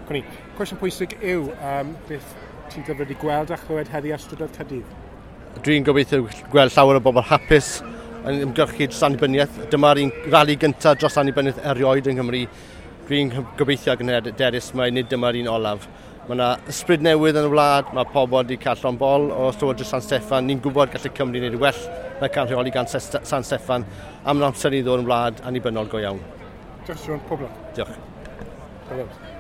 Cwni, cwestiwn pwysig yw, beth ti'n dyfod i gweld a chlywed heddi ar strydoedd Caerdydd? Dwi'n gobeithio gweld llawer o bobl hapus yn ymgyrchu dros annibyniaeth. Dyma'r un rali gyntaf dros annibyniaeth erioed yng Nghymru. Dwi'n gobeithio ac yn hyderus mai nid dyma'r un olaf. Mae yna ysbryd newydd yn y wlad, mae pobl wedi cael llond bol o Llywodraeth San Steffan. Ni'n gwybod gallu Cymru wneud well na cael rheoli gan San Steffan am amser i ddod yn wlad annibynnol go iawn. Diolch, Siôn. Pob lwc. Diolch. Pob lwc.